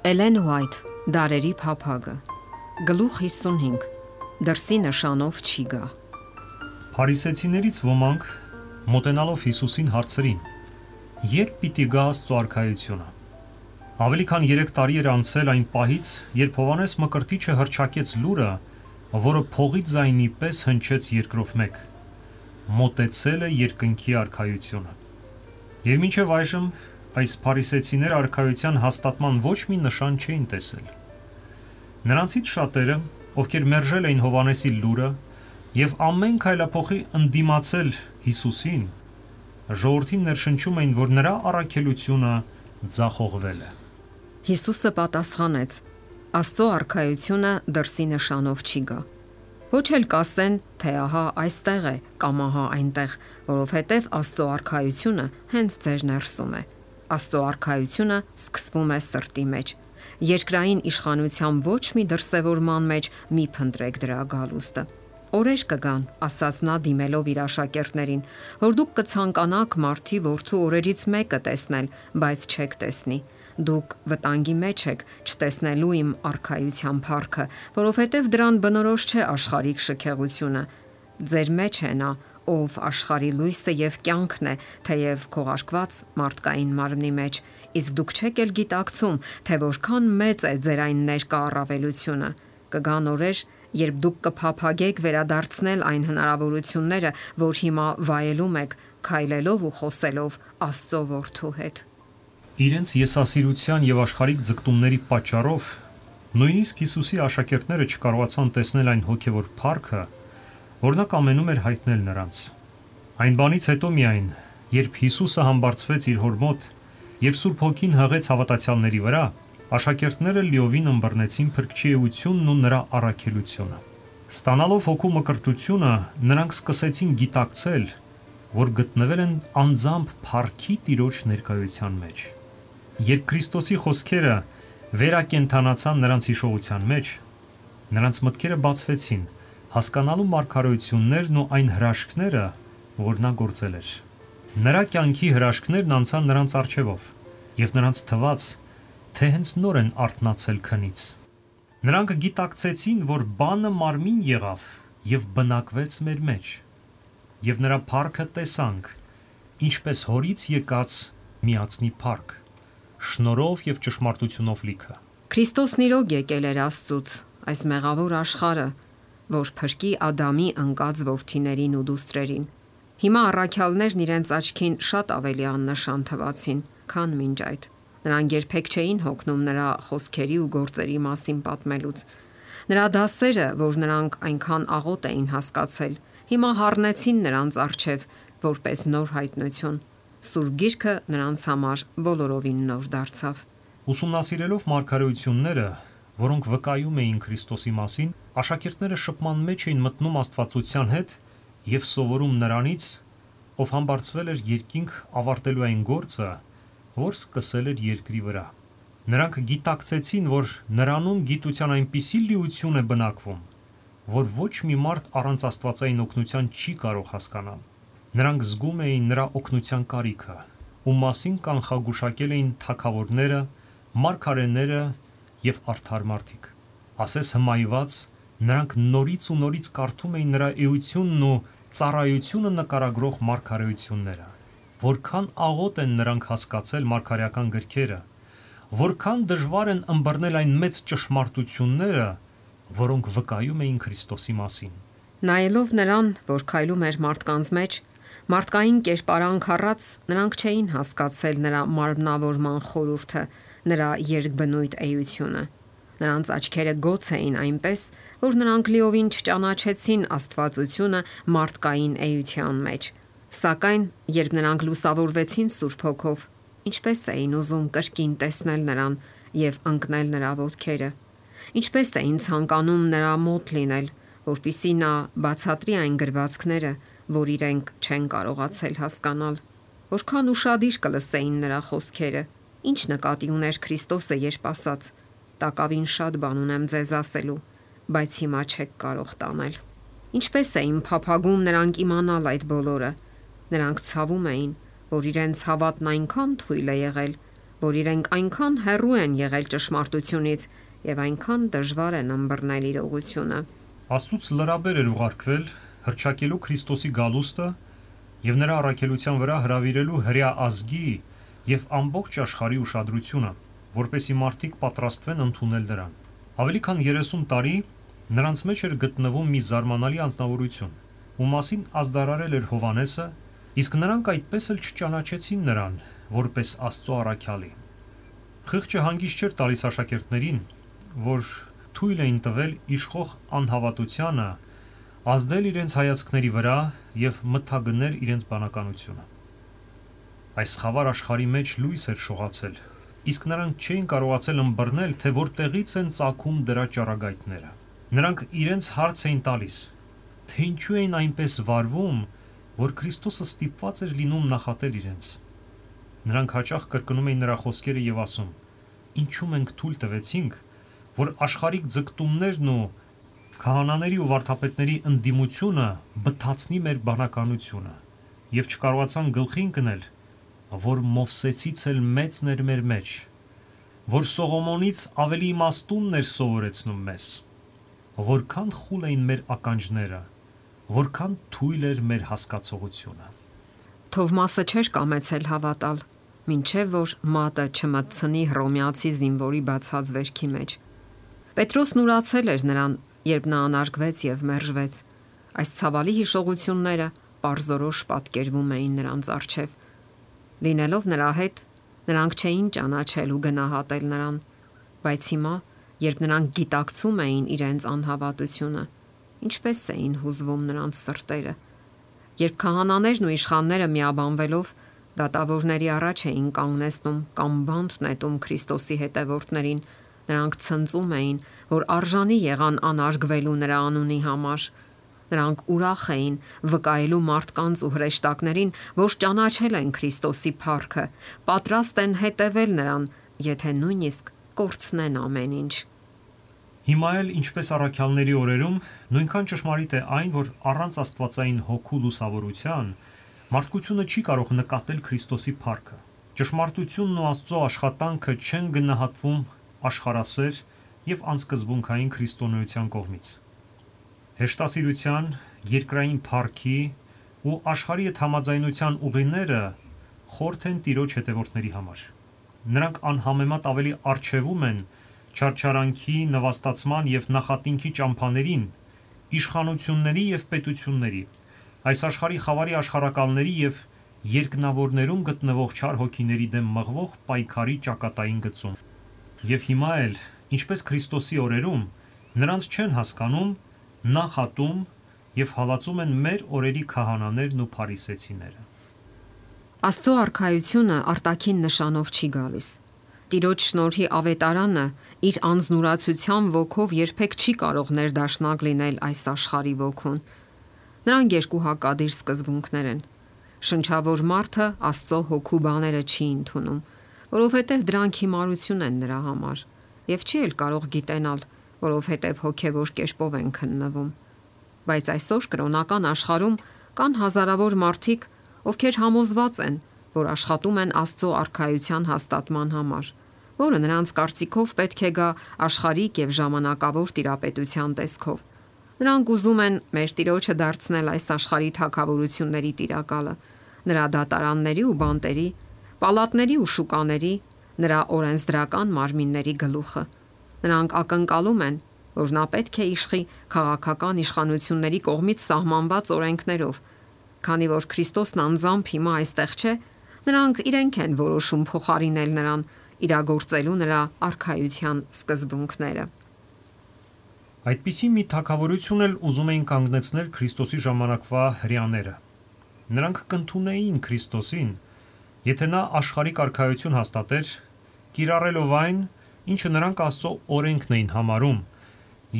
Էլեն Ուայթ, Դարերի փափագը, գլուխ 55, դրսի նշանով չի գա։ Փարիսեցիներից ոմանք մոտենալով Հիսուսին հարցրին. Երբ պիտի գա Աստծո արքայությունը։ Ավելի քան 3 տարի էր անցել այն պահից, երբ Հովհաննես Մկրտիչը հռչակեց լուրը, որը փողի ձայնի պես հնչեց երկրով մեկ. մոտեցել է երկնքի արքայությունը։ Եվ մինչև այժմ այս փարիսեցիները արքայության հաստատման ոչ մի նշան չէին տեսել։ Նրանցից շատերը, ովքեր մերժել էին Հովհաննեսի լուրը եւ ամեն քայլափոխի ընդդիմացել Հիսուսին, ժողովրդին ներշնչում էին, որ նրա առաքելությունը ձախողվել է։ Հիսուսը պատասխանեց. Աստծո արքայությունը դրսի նշանով չի գա։ Ոչ էլ կասեն, թե ահա այստեղ է կամ ահա այնտեղ, որովհետև Աստծո արքայությունը հենց ձեր ներսում է։ Աստծո արքայությունը սկսվում է սրտի մեջ։ Երկրային իշխանության ոչ մի դրսևորման մեջ մի փնտրեք դրա գալուստը։ Օրեր կգան, ասաց նա դիմելով իր աշակերտներին, որ դուք կցանկանաք մարդի որդու օրերից մեկը տեսնել, բայց չեք տեսնի։ Դուք վտանգի մեջ եք չտեսնելու իմ արքայության փառքը, որովհետև դրան բնորոշ չէ աշխարհիկ շքեղությունը։ Ձեր մեջ է նա, ով աշխարհի լույսը եւ կյանքն է, թեև քողարկված մարդկային մարմնի մեջ, իսկ դուք չեք էլ գիտակցում, թե որքան մեծ է ձեր այն ներկա առավելությունը։ Կգան օրեր, երբ դուք կփափագեք վերադարձնել այն հնարավորությունները, որ հիմա վայելում եք, քայլելով ու խոսելով Աստծո որդու հետ։ Իրենց եսասիրության եւ աշխարհիկ ձգտումների պատճառով նույնիսկ Հիսուսի աշակերտները չկարողացան տեսնել այն հոգեվոր փառքը, որ նա կամենում էր հայտնել նրանց։ Այն բանից հետո միայն, երբ Հիսուսը համբարձվեց իր հոր մոտ եւ Սուրբ Հոգին հղեց հավատացյալների վրա, աշակերտները լիովին ըմբռնեցին Փրկչի էությունն ու նրա առաքելությունը։ Ստանալով հոգու մկրտությունը, նրանք սկսեցին գիտակցել, որ գտնվել են անձամբ փառքի Տիրոջ ներկայության մեջ։ Երբ Քրիստոսի խոսքերը վերակենդանացան նրանց հիշողության մեջ, նրանց մտքերը բացվեցին, հասկանալու մարգարեություններն ու այն հրաշքները, որ նա գործել էր։ Նրա կյանքի հրաշքներն անցան նրանց առջևով, եւ նրանց թվաց, թե հենց նոր են արթնացել քնից։ Նրանք գիտակցեցին, որ բանը մարմին եղավ եւ բնակվեց մեր մեջ, եւ նրա փառքը տեսանք, ինչպես հորից եկած միածնի փառք, շնորհով եւ ճշմարտությունով լիքը։ Քրիստոսն իրոք եկել էր Աստծուց, այս մեղավոր աշխարհը, որ փրկի Ադամի ընկած որդիներին ու դուստրերին։ Հիմա առաքյալներն իրենց աչքին շատ ավելի աննշան թվացին, քան մինչ այդ։ Նրանք երբեք չէին հոգնում նրա խոսքերի ու գործերի մասին պատմելուց։ Նրա դասերը, որ նրանք այնքան աղոտ էին հասկացել, հիմա հառնեցին նրանց առջև որպես նոր հայտնություն։ Սուրբ Գիրքը նրանց համար բոլորովին նոր դարձավ։ Ուսումնասիրելով մարգարեությունները, որոնք վկայում էին Քրիստոսի մասին, աշակերտները շփման մեջ էին մտնում Աստվածության հետ եւ սովորում նրանից, ով համբարձվել էր երկինք ավարտելու այն գործը, որ սկսել էր երկրի վրա։ Նրանք գիտակցեցին, որ նրանում գիտության այնպիսի լիություն է բնակվում, որ ոչ մի մարդ առանց աստվածային օգնության չի կարող հասկանալ։ Նրանք զգում էին նրա օգնության կարիքը, ում մասին կանխագուշակել էին թագավորները, մարգարեները եւ արդար մարդիկ։ Ասես հմայված, նրանք նորից ու նորից կարդում էին նրա էությունն ու ծառայությունը նկարագրող մարգարեությունները։ Որքան աղոտ են նրանք հասկացել մարգարեական գրքերը, որքան դժվար են ըմբռնել այն մեծ ճշմարտությունները, որոնք վկայում էին Քրիստոսի մասին։ Նայելով նրան, որ քայլում էր մարդկանց մեջ, մարդկային կերպարանք առած, նրանք չէին հասկացել նրա մարմնավորման խորհուրդը, նրա երկբնույթ էությունը։ Նրանց աչքերը գոց էին այնպես, որ նրանք լիովին չճանաչեցին Աստվածությունը մարդկային էության մեջ։ Սակայն, երբ նրանք լուսավորվեցին Սուրբ Հոգով, ինչպես էին ուզում կրկին տեսնել նրան եւ ընկնել նրա ոտքերը։ Ինչպես էին ցանկանում նրա մոտ լինել, որpիսի նա բացատրի այն գրվածքները, որ իրենք չեն կարողացել հասկանալ։ Որքան ուշադիր կլսեին նրա խոսքերը։ Ինչ նկատի ուներ Քրիստոսը, երբ ասաց. «Տակավին շատ բան ունեմ ձեզ ասելու, բայց հիմա չեք կարող տանել»։ Ինչպես էին փափագում նրանք իմանալ այդ բոլորը։ Նրանք ցավում էին, որ իրենց հավատն այնքան թույլ է եղել, որ իրենք այնքան հեռու են եղել ճշմարտությունից եւ այնքան դժվար են ըմբռնել իրողությունը։ Աստծուց լրաբեր էր ուղարկվել հռչակելու Քրիստոսի գալուստը եւ նրա առաքելության վրա հրավիրելու հրեա ազգի եւ ամբողջ աշխարհի ուշադրությունը, որպեսզի մարդիկ պատրաստվեն ընդունել նրան։ Ավելի քան 30 տարի նրանց մեջ էր գտնվում մի զարմանալի անձնավորություն, ում մասին ազդարարել էր Հովհաննեսը, իսկ նրանք այդպես էլ չճանաչեցին նրան որպես Աստծո առաքյալի։ Խիղճը հանգիստ չէր տալիս աշակերտներին, որ թույլ էին տվել իշխող անհավատությանը ազդել իրենց հայացքների վրա եւ մթագնել իրենց բանականությունը։ Այս խավար աշխարհի մեջ լույս էր շողացել, իսկ նրանք չէին կարողացել ըմբռնել, թե որտեղից են ծագում դրա ճառագայթները։ Նրանք իրենց հարց էին տալիս, թե ինչու էին այնպես վարվում, որ Քրիստոսը ստիպված էր լինում նախատել իրենց։ Նրանք հաճախ կրկնում էին նրա խոսքերը եւ ասում. «Ինչու մենք թույլ տվեցինք, որ աշխարհիկ ձգտումներն ու քահանաների ու վարդապետների ընդդիմությունը բթացնի մեր բանականությունը եւ չկարողացան գլխի ընկնել, որ Մովսեսից էլ մեծն էր մեր մեջ, որ Սողոմոնից ավելի իմաստունն էր սովորեցնում մեզ, որքան խուլ էին մեր ականջները, որքան թույլ էր մեր հասկացողությունը»։ Թովմասը չէր կամեցել հավատալ, մինչև որ մատը չմտցնի հռոմեացի զինվորի բացած վերքի մեջ։ Պետրոսն ուրացել էր նրան, երբ նա անարգվեց եւ մերժվեց։ Այս ցավալի հիշողությունները պարզորոշ պատկերվում էին նրանց առջև։ Լինելով նրա հետ, նրանք չէին ճանաչել ու գնահատել նրան, բայց հիմա, երբ նրանք գիտակցում էին իրենց անհավատությունը, ինչպես էին հուզվում նրանց սրտերը։ Երբ քահանաներն ու իշխանները միաբանվելով դատավորների առաջ էին կանգնեցնում կամ բանտ նետում Քրիստոսի հետևորդներին, նրանք ցնծում էին, որ արժանի եղան անարգվելու նրա անունի համար։ Նրանք ուրախ էին վկայելու մարդկանց ու հրեշտակներին, որ ճանաչել են Քրիստոսի փառքը, պատրաստ են հետևել նրան, եթե նույնիսկ կորցնեն ամեն ինչ։ Հիմա էլ, ինչպես առաքյալների օրերում, նույնքան ճշմարիտ է այն, որ առանց աստվածային հոգու լուսավորության մարդկությունը չի կարող նկատել Քրիստոսի փառքը։ Ճշմարտությունն ու Աստծո աշխատանքը չեն գնահատվում աշխարհասեր եւ անսկզբունքային քրիստոնեության կողմից։ Հեշտասիրության, երկրային փառքի ու աշխարհի հետ համաձայնության ուղիները խորթ են Տիրոջ հետևորդների համար։ Նրանք անհամեմատ ավելի արժևում են չարչարանքի, նվաստացման եւ նախատինքի ճամփաներին, իշխանությունների եւ պետությունների, այս աշխարհի խավարի աշխարհակալների եւ երկնավորներում գտնվող չար հոգիների դեմ մղվող պայքարի ճակատային գծում։ Եվ հիմա էլ, ինչպես Քրիստոսի օրերում, նրանց չեն հասկանում, նախատում եւ հալածում են մեր օրերի քահանաներն ու փարիսեցիները։ Աստծո արքայությունը արտաքին նշանով չի գալիս։ Տիրոջ շնորհի ավետարանը իր անznուրացության ոգով երբեք չի կարող ներդաշնակ լինել այս աշխարհի ոգուն։ Նրանք երկու հակադիր սկզբունքներ են։ Շնչավոր մարդը Աստծո հոգու բաները չի ընդունում, որովհետև դրանք հիմարություն են նրա համար, եւ չի էլ կարող գիտենալ, որովհետև հոգեվոր կերպով են քննվում։ Բայց այսօր կրոնական աշխարհում կան հազարավոր մարդիկ, ովքեր համոզված են, որ աշխատում են Աստծո արքայության հաստատման համար, որը նրանց կարծիքով պետք է գա աշխարհիկ եւ ժամանակավոր տիրապետության տեսքով։ Նրանք ուզում են մեր Տիրոջը դարձնել այս աշխարհի թագավորությունների տիրակալը, նրա դատարանների ու բանտերի, պալատների ու շուկաների, նրա օրենսդրական մարմինների գլուխը։ Նրանք ակնկալում են, որ նա պետք է իշխի քաղաքական իշխանությունների կողմից սահմանված օրենքներով, քանի որ Քրիստոսն անձամբ հիմա այստեղ չէ, նրանք իրենք են որոշում փոխարինել նրան, իրագործելու նրա արքայության սկզբունքները։ Այդպիսի մի թագավորություն էլ ուզում էին կանգնեցնել Քրիստոսի ժամանակվա հրեաները։ Նրանք կընդունեին Քրիստոսին, եթե նա աշխարհիկ արքայություն հաստատեր, կիրառելով այն, ինչը նրանք Աստծո օրենքն էին համարում,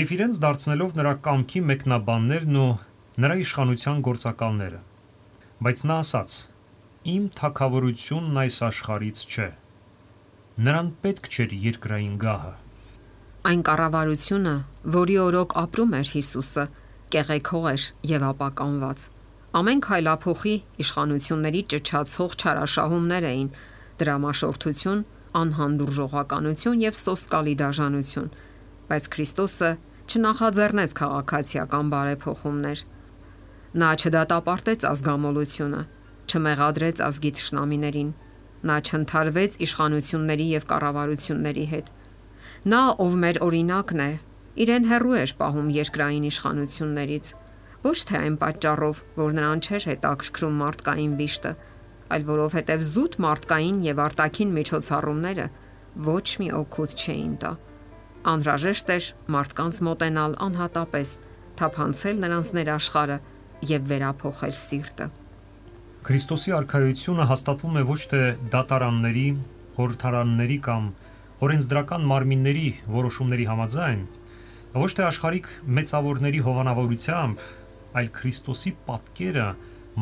եւ իրենց դարձնելով նրա կամքի մեկնաբաններն ու նրա իշխանության գործակալները։ Բայց նա ասաց. «Իմ թագավորությունն այս աշխարհից չէ»։ Նրան պետք չէր երկրային գահը։ Այն կառավարությունը, որի օրոք ապրում էր Հիսուսը, կեղեքող էր եւ ապականված։ Ամեն քայլափոխի իշխանությունների ճչացող չարաշահումներ էին, դրամաշորթություն անհանդուրժողականություն եւ սոսկալի դաժանություն, բայց Քրիստոսը չնախաձեռնեց քաղաքացիական բարեփոխումներ։ Նա չդատապարտեց ազգամոլությունը, չմեղադրեց ազգի թշնամիներին, նա չընթարվեց իշխանությունների եւ կառավարությունների հետ։ Նա, ով մեր օրինակն է, իրեն հեռու էր պահում երկրային իշխանություններից, ոչ թե այն պատճառով, որ նրան չէր հետաքրքրում մարդկային վիշտը, այլ որովհետև զուտ մարդկային եւ արտաքին միջոցառումները ոչ մի օգուտ չէին տա։ Անհրաժեշտ էր մարդկանց մոտենալ անհատապես, թափանցել նրանց ներաշխարը եւ վերափոխել սիրտը։ Քրիստոսի արքայությունը հաստատվում է ոչ թե դատարանների, խորհրդարանների կամ օրենսդրական մարմինների որոշումների համաձայն, ոչ թե աշխարհիկ մեծավորների հովանավորությամբ, այլ Քրիստոսի պատկերը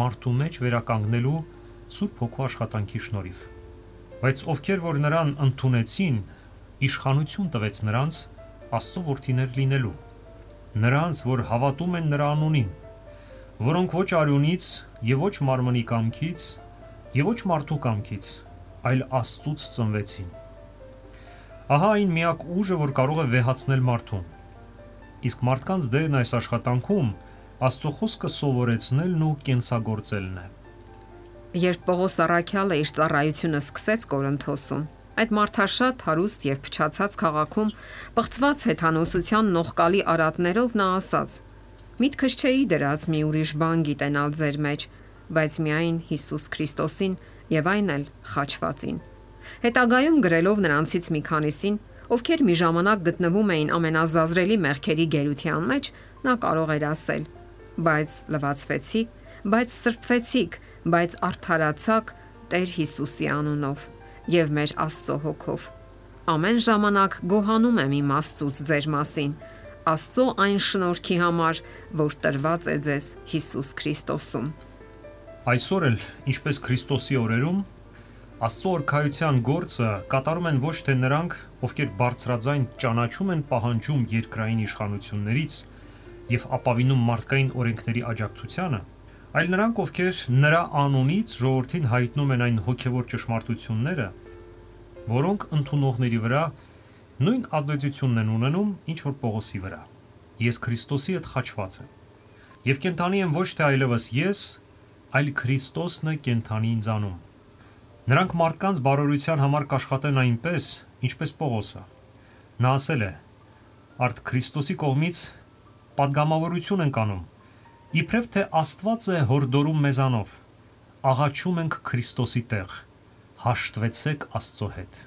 մարդու մեջ վերականգնելու Սուրբ Հոգու աշխատանքի շնորհիվ։ Բայց ովքեր որ նրան ընդունեցին, իշխանություն տվեց նրանց Աստծո որդիներ լինելու, նրանց, որ հավատում են նրա անունին, որոնք ոչ արյունից եւ ոչ մարմնի կամքից եւ ոչ մարդու կամքից, այլ Աստծուց ծնվեցին։ Ահա այն միակ ուժը, որ կարող է վեհացնել մարդուն։ Իսկ մարդկանց դերն այս աշխատանքում Աստծո խոսքը սովորեցնելն ու կենսագործելն է։ Երբ Պողոս առաքյալը իր ծառայությունը սկսեց Կորինթոսում, այդ մարդաշատ հարուստ եւ փչացած քաղաքում պղծված հեթանոսության նողկալի արատներով նա ասաց. «Միտքս չէի դրած մի ուրիշ բան գիտենալ ձեր մեջ, բայց միայն Հիսուս Քրիստոսին եւ այն էլ խաչվածին»։ Հետագայում գրելով նրանցից մի քանիսին, ովքեր մի ժամանակ գտնվում էին ամենազազրելի մեղքերի գերության մեջ, նա կարող էր ասել. «Բայց լվացվեցիք, բայց սրբվեցիք, բայց արդարացաք Տեր Հիսուսի անունով եւ մեր Աստծո հոգով։ Ամեն ժամանակ գոհանում եմ իմ Աստծուց ձեր մասին, Աստծո այն շնորհքի համար, որ տրված է ձեզ Հիսուս Քրիստոսում»։ Այսօր էլ, ինչպես Քրիստոսի օրերում, Աստծո օրքայության գործը կատարում են ոչ թե նրանք, ովքեր բարձրաձայն ճանաչում են պահանջում երկրային իշխանություններից եւ ապավինում մարդկային օրենքների աջակցությանը, այլ նրանք, ովքեր նրա անունից ժողովրդին հայտնում են այն հոգևոր ճշմարտությունները, որոնք ընդունողների վրա նույն ազդեցությունն են ունենում, ինչ որ Պողոսի վրա։ Ես Քրիստոսի հետ խաչված եմ։ Եվ կենթանի եմ ոչ թե այլևս ես, այլ Քրիստոսն է կենթանի ինձանում։ Նրանք մարդկանց բարօրության համար կաշխատեն այնպես, ինչպես Պողոսը։ Նա ասել է. «Արդ Քրիստոսի կողմից պատգամավորություն ենք անում, իբրև թե Աստված է հորդորում մեզանով, աղաչում ենք Քրիստոսի տեղ, հաշտվեցեք Աստծո հետ»։